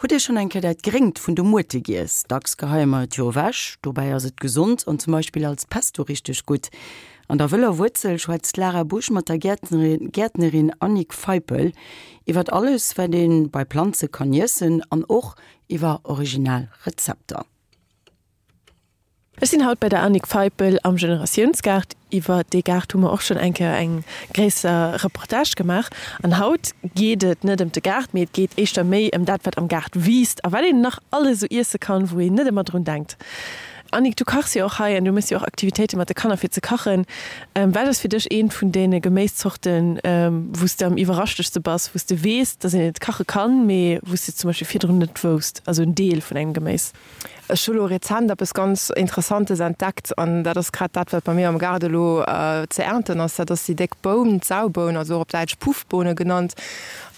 Hutt Dir schonn eng Kéier dat Gréngt vun de Muerte giess? Dacks geheie mer et jo ewech, dobäi ass et gesond an zum Beispill als Pesto richteg gutt. An der wëller Wuerzel schwätzt d'Lara Busch mat der Gäertnerin Annick Feipel iwwert alles, wat ee bei Planze kann iessen an och iwwer original Rezepter. Ech sinn haut bei der Annick Feipel am Generatiounsgaart. Iwwer dee Gaart hu mer och schonn eng Kéier eng gréisser Reportage gemaach. An haut geet et net ëm de Gaart, mee et geet éischter méi ëm dat, wat am Gaart wiisst a wat een nach alles esou iesse kann, wou een net ëmmer drun denkt. Annick, du kachs jo och hei an du méchs jo och Aktivitéite mat de Kanner fir ze kachen. Wat ass fir dech eent vun deene Geméiszorten, wou s de am iwwerraschtegste bass, wou s de weess, dass een et kache kann, mee wou s de et zum Beispill virdrun net wousst, also en Deel vun engem Geméis? Ech hu lo rezent eppes ganz Interessantes entdeckt an dat ass grad dat, wat bei mir am Gaart elo ze ernten ass. Dat ass déi déck Boun, d'Sauboun, also och op Däitsch Puffbohne genannt.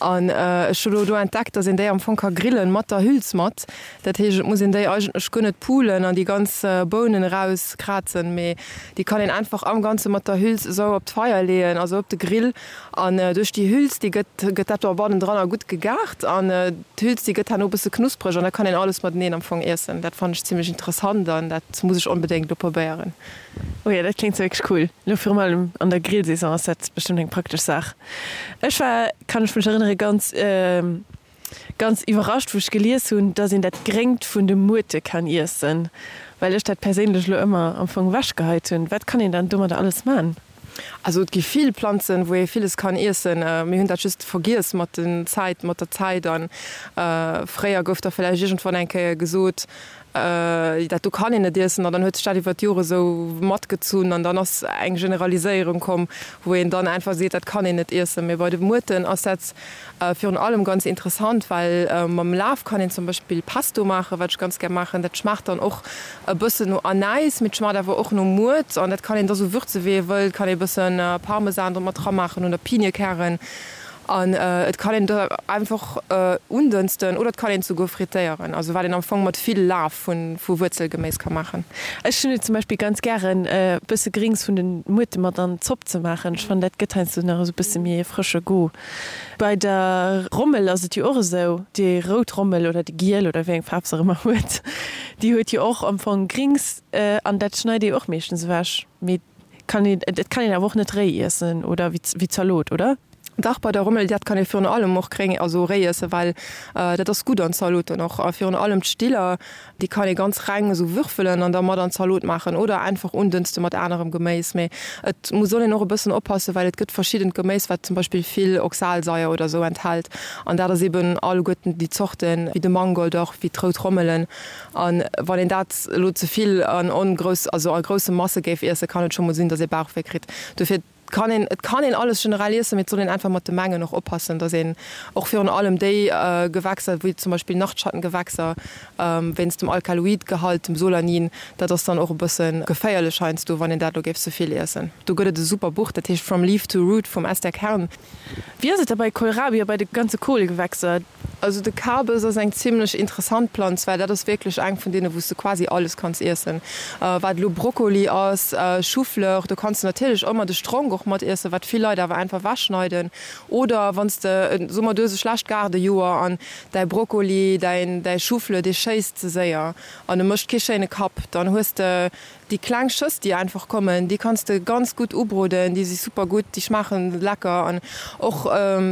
An ech hu lo do entdeckt, dass een déi am Fong ka grillen, mat der Hüls mat. Dat heescht, et muss een déi eigentlech guer net pulen an déi ganz Bounen erauskrazen, mee déi kann een einfach am Ganze mat der Hüls esou op d'Feier leeën, also op de Grill. An duerch déi Hüls, déi gëtt, gëtt dat do bannendranner gutt gegart an d'Hüls, déi gëtt herno e bësse knuspreg an da kann een alles mateneen am Fong iessen. Dat fannen ech zimlech interessant an dat muss ech onbedéngt elo probéieren. Oh jo, dat kléngt wierklech cool. Elo virun allem an der Grillsaison ass dat bestëmmt eng praktesch Saach. Ech war, kann ech mech erënnere, ganz. Ganz iwwerrascht wou ech gelies hunn, dass een dat Gréngt vun de Muerte kann iessen, well ech dat perséinlech elo ëmmer am Fong ewech geheit hunn. Wat kann een dann domadder alles man? Also et gi vill Planzen wou ee villes kann iessen. Mir hunn dat just vergiess mat den Zäit, mat der Zäit an fréier gouf da villäicht iergendwann eng Kéier gesot, dat do kann een net iessen an dann huet sech dat iwwer d'Jore sou matgezunn an dann ass eng Generaliséierung komm, wou een dann einfach seet, dat kann een net iessen. Mee bei de Muerten ass dat virun allem ganz interessant, well mam Laf kann een zum Beispill Pesto maachen, wat ech ganz gär maachen. Dat schmaacht dann och e bëssen no Anäis, mee et schmaacht awer och no Muert an dat kann een da sou würze wéi ee wëllt, kann ee bësse Parmesan do mat ramaachen oder Piniekären. An et kann een et einfach undënsten oder et kann een et souguer frittéieren, also wat een am Fong mat vill Laf vu Wuerzelgeméis ka maachen. Ech hunn et zum Beispill ganz gären e bësse Grings vun den Muerte mat an d'Zopp ze maachen. Ech fannen dat gëtt heiansdo nach esou bësse méi e frësche Goût. Bei der Rommel ass et jo och esou, déi rout Rommel oder déi giel oder wéi eng Faarf se och ëmmer huet, déi huet jo och am Fong Grings an dat schneit ee jo och meeschtens ewech. Mee kann een, et kann een awer och net réi iessen oder wéi Zalot, oder? Dach, bei der Rommel, dat kann ee virun allem och gréng, also réi iessen, well dat ass gutt an Zaloten och. A virun allem d'Stiller, déi kann ee ganz reng esou würfelen an da mat an d'Zalot maachen oder einfach undënste mat anerem Geméis. Mee et muss soll een och e bëssen oppassen, well et gëtt verschiddent Geméis, wat zum Beispill vill Oxalsaier oder esou enthält. An dat ass eben alleguerten déi Zorten, wéi de Mangold och, wéi d'rout Rommelen. An wann een dat elo ze vill an ongrouss, also a grousse Masse géif iessen, kann et scho mol sinn, datt ee Bauchwéi kritt. Dofir. Kann een, et kann een alles generell iessen, mee et soll een einfach mat de Mengen och oppassen, dass een och virun allem déi Gewächser, wéi zum Beispill Nachtschattengewächser, wéinst dem Alkaloidgehalt, dem Solanin, dat ass dann och e bësse geféierlech heiansdo, wann een dat elo géif ze vill iessen. Do gëtt et e super Buch, dat heescht From Leaf to Root vum Esther Kern. Wéi ass et da bei Kohlrabi a bei de ganze Kohlgewächser? Also de Kabes ass eng zimlech interessant Planz, well dat ass wierklech eng vun deene wou s de quasi alles kanns iessen. Wat elo Brokkoli ass, Choufleur, do kanns de natierlech ëmmer de Stronk och mat iessen, wat vill Leit awer einfach ewechschneiden. Oder wann s de, soe mer du hues e schlecht Gaardejoer an däi Brokkoli, däin däi Choufleur, dee schéisst ze séier an e mécht kee schéine Kapp, dann hues de Déi kleng Schëss déi einfach kommen, déi kanns de ganz gutt ubroden, déi si super gutt, déi schmaachen lecker an och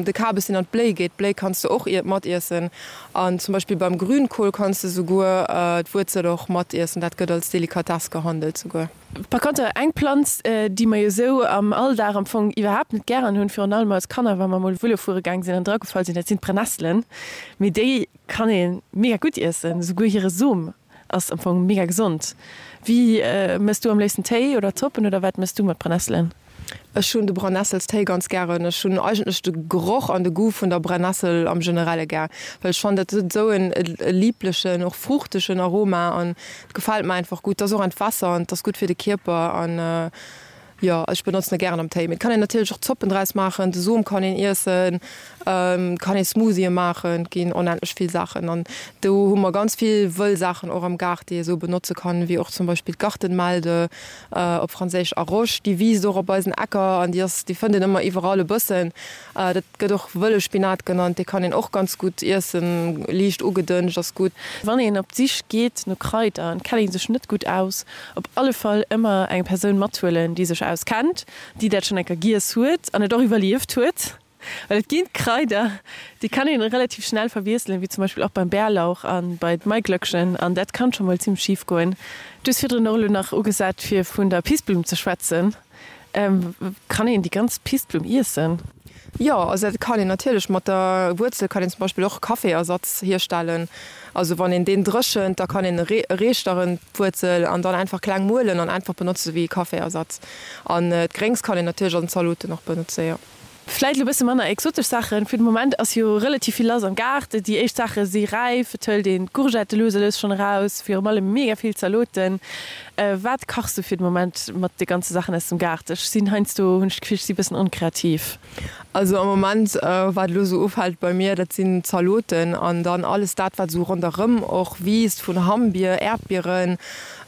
de Kabes deen an d'Bléi geet, d'Bléi kanns de och mat iessen an zum Beispill beim Grünkohl kanns de souguer d'Wuerzel och mat iessen, dat gëtt als Delikatess gehandelt souguer. Par konter eng Planz déi mer jo sou am Alldag am Fong iwwerhaapt net gären hunn, virun allem als Kanner wa mer mol Vëlo fuere gaang sinn an dragefall sinn, dat sinn d'Brennesselen, mee déi kann ee mega gutt iessen, souguer hire Som. Ass am Fong mega gesond. Wéi mëss du am léifsten Téi oder Zoppen oder wat mëss du mat Brennesselen? Ech hunn de Brennesselstéi ganz gären. Ech hunn eigentlech de Geroch an de Goût vun der Brennessel am generelle gär, well ech fannen dat huet esou en lieblechen, och fruchtegen Aroma an et gefält mer einfach gutt. Et ass och entwässernd, et ass gutt fir de Kierper an. Jo, ech benotzen e gären am Téi. Mee et kann een natierlech och Zoppen draus maachen, de Som kann een iessen, et kann ee Smoothië maachen, et ginn onendlech vill Saachen. An do hu mer ganz vill wëll Saachen och am Gaart, déi ee sou benotze kann, wéi och zum Beispill d'Gartenmelde, op Franséisch Arrosch, déi wiisst och op eisen Äcker an déi ass, déi fënnt een ëmmer iwwerall e bëssen. Dat gëtt och wëlle Spinat genannt, dee kann een och ganz gutt iessen, liicht ugedënscht ass gutt. Wann een op d'Sich geet no Kraider an et kennt ee sech net gutt aus, op alle Fall ëmmer eng Persoun mathuelen, déi sech auskennt, déi dat schonn eng Kéier giess huet an et och iwwerlieft huet. Well et ginn Kraider, déi kann een relativ schnell verwiesselen, wéi zum Beispill och beim Bärlauch an bei d'Maiglöckchen, an dat kann scho mol zimmlech schif goen. Du hues virdrun och elo nach ugesat fir vun der Pissblumm ze schwätzen. Kann een déi ganz Pissblumm iessen? Jo, also dat kann een natierlech. Mat der Wuerzel kann een zum Beispill och Kaffeeersatz hierstellen. Also wann een deen dréchent, da kann een e reeschteren, d'Wuerzel, an dann einfach kleng muelen an einfach benotze wéi Kaffeeersatz. An d'Gréngs kann een natierlech an Zaloten och benotze, jo. Vläit elo bësse manner exotesch Saachen. Fir de Moment ass jo relativ vill lass am Gaart. Déi éischt Saache si räif. Et hëlt een d'Courgette lues a lues schonn eraus. Virum allem mega vill Zaloten. Wat kachs du fir de Moment mat de ganze Saachen aus dem Gaart? Ech sinn heiansdo, hunn ech d'Gefill, ech si bëssen onkreativ. Also am Moment, wat elo esou ufält bei mir, dat sinn Zaloten an dann alles dat, wat esou ronderëm och wiisst, vun Hammbier, Äerdbieren.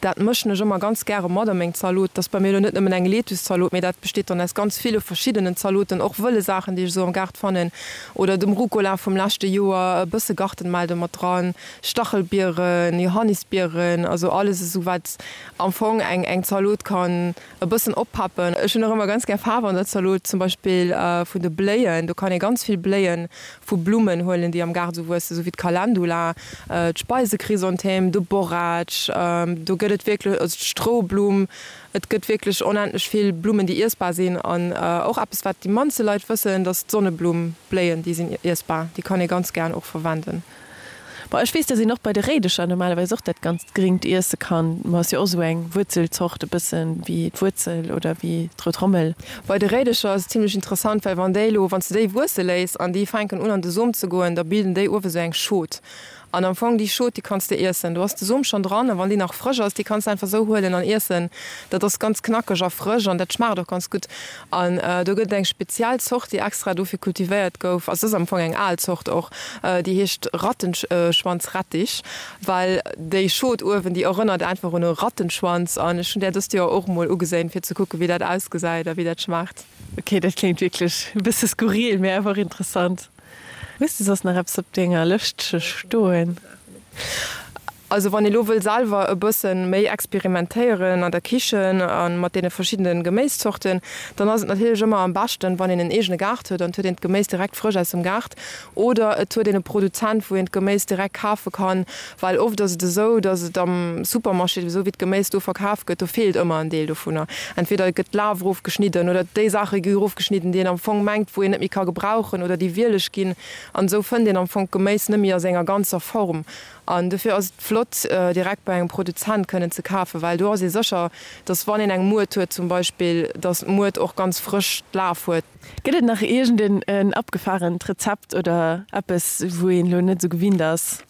Dat mëschen ech ëmmer ganz gäre mat a meng Zalot. Dat ass bei mir elo net nëmmen eng Lettuce-Zalot, mee dat besteet dann aus ganz ville verschiddenen Zaloten, och wëlle Saachen, déi ech esou am Gaart fannen, oder dem Rucola vum leschte Joer, e bësse Gartenmelde mat dran, Stachelbieren, Johannisbieren, also alles esou wat am Fong eng eng Zalot kann e bëssen oppeppen. Ech hunn och ëmmer ganz gär Faarf an der Zalot, zum Beispill vun de Bléien. Do kann ee ganz vill Bléien vu Blummen huelen, déi am Gaart esou wuessen, esou wéi d'Calendula, d'Speisekrysanthème, de Borretsch, do gëtt et wierklech, also d'Stroublumm, et gëtt wierklech onendlech vill Blummen, déi iessbar sinn. An och eppes, wat déi mannste Leit wëssen, dass d'Sonneblumm-Bléien, déi sinn iessbar, déi kann ee ganz gären och verwenden. Bon, ech weess, dass een och bei de Réidecher normalerweis och dat ganzt Gringt iesse kann. Ma ass jo och esou eng Wuerzelzort, e bëssen wéi d'Wuerzel oder wéi d'Rout Rommel. Bei de Réidecher ass et zimlech interessant, well wann déi elo, wann s de déi wuesse léiss an déi fänken un an de Som ze goen, da bilden déi uewe sou eng Schot. An am Fong déi Schot, déi kanns de iessen. Do ass de Som schonn dran a wann déi nach frësch ass, déi kanns de einfach sou huelen an iessen. Dat ass ganz knackeg a frësch an dat schmaacht och ganz gutt. An do gëtt et eng speziell Zort, déi extra dofir kultivéiert gouf, also et ass am Fong eng al Zort och, déi heescht Rattenschwanzrettich, well déi Schot uewen, déi erënnert einfach un e Rattenschwanz. An ech hunn där dëst Joer och emol ugeséin, fir ze kucken, wéi dat ausgesäit a wéi dat schmaacht. Ok, dat kléngt wierklech e bësse skurril, mee awer och interessant. Hues de soss nach eppes op denger Lëschtche stoen? Also wann ee lo wëll selwer e bëssen méi experimentéieren an der Kichen a mat deene verschiddene Geméiszorten, dann ass et natierlech ëmmer am beschten, wann een en eegene Gaart huet an et huet een d'Geméis direkt frësch aus dem Gaart oder et huet een e Produzent, wou een d'Geméis direkt kafe kann, well oft ass et esou, dass et am Supermarché, esou wéi d'Geméis do verkaf gëtt, do feelt ëmmer en Deel dovunner. Entweder gëtt d'Laf erofgeschnidden oder déi Saache gi erofgeschnidden, déi een am Fong mengt, wou een net méi ka gebrauchen oder déi wieleg ginn an esou fënnt een am Fong d'Geméis net méi a senger ganzer Form. An dofir ass et flott, direkt bei engem Produzent kënnen ze kafen, well do ass ee sécher, dass wann een eng Muert huet zum Beispill, dass d'Muert och ganz frësch d'Laf huet. Gëtt et nach iergend en abgefahrent Rezept oder eppes, wou een elo net esou gewinnt ass?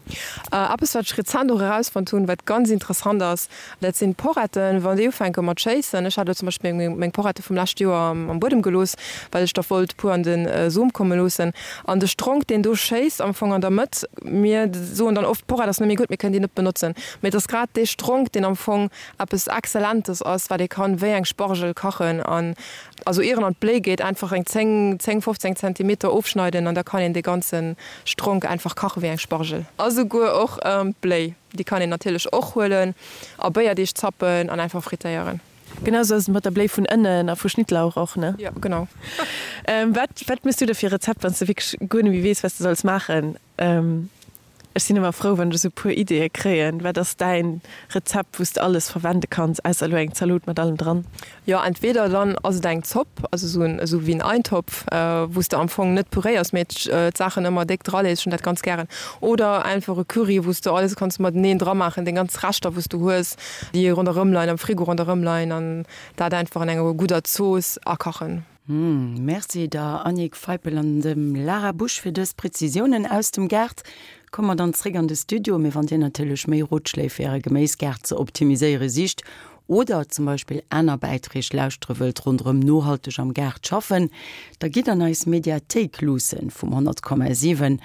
Eppes, wat ech rezent och erausfonnt hunn, wat ganz interessant ass, dat sinn d'Poretten. Wann déi ufänke mat schéissen, ech hat elo zum Beispill meng Porrette vum leschte Joer am Buedem gelooss, well ech der wollt puer an de Som komme loossen. An de Stronk, deen do schéisst am Fong an der Mëtt, mir soen dann oft, d'Porrett ass net méi gutt, mir kënnen déi net benotzen. Mee et ass grad dee Stronk, deen am Fong eppes Exzellentes ass, wat ee kann wéi eng Spargel kachen. An also ier en an d'Bléi geet, einfach eng 10, 10, 15 Zentimeter ofschneiden an da kann een dee ganze Stronk einfach kache wéi eng Spargel. A souguer och d'Bléi, déi kann een natierlech och huelen a Béierdeeg zappen an einfach frittéieren. Genau sou ass et mat der Bléi vun Ënnen a vu Schnittlauch och, ne? Jo, genau. Wat, wat méchs du da fir e Rezept, wann s de wierklech guer net méi weess, wat s de solls maachen? Ech sinn ëmmer frou, wann ech esou e puer Ideeë kréien. Wat ass däin Rezept, wou s de alles verwende kanns, ausser elo eng Zalot mat allem dran? Jo, entweder dann ass et eng Zopp, also esou en, esou wéi en Eintopf, wou s de am Fong net puréiers, mee d'Saachen ëmmer déck dralees, ech hunn dat ganz gären. Oder einfach e Curry, wou s de alles kanns mateneen dramaachen, deng ganz Reschter, wou s du hues, déi ronderëm leien, am Frigo ronderëm leien an dat einfach an enger gudder Zooss akachen. Merci der Annick Feipel an dem Lara Busch fir dës Präzisiounen aus dem Gaart. Komme mer dann zréck an de Studio. Mee wann Dir natierlech méi Rotschléi fir Äre Geméisgaart ze optimiséiere sicht. Oder zum Beispill aner Bäiträg lauschtere wëllt ronderëm nohalteg am Gaart schaffen, da gitt an eis Mediathéik luussen vum 100,7.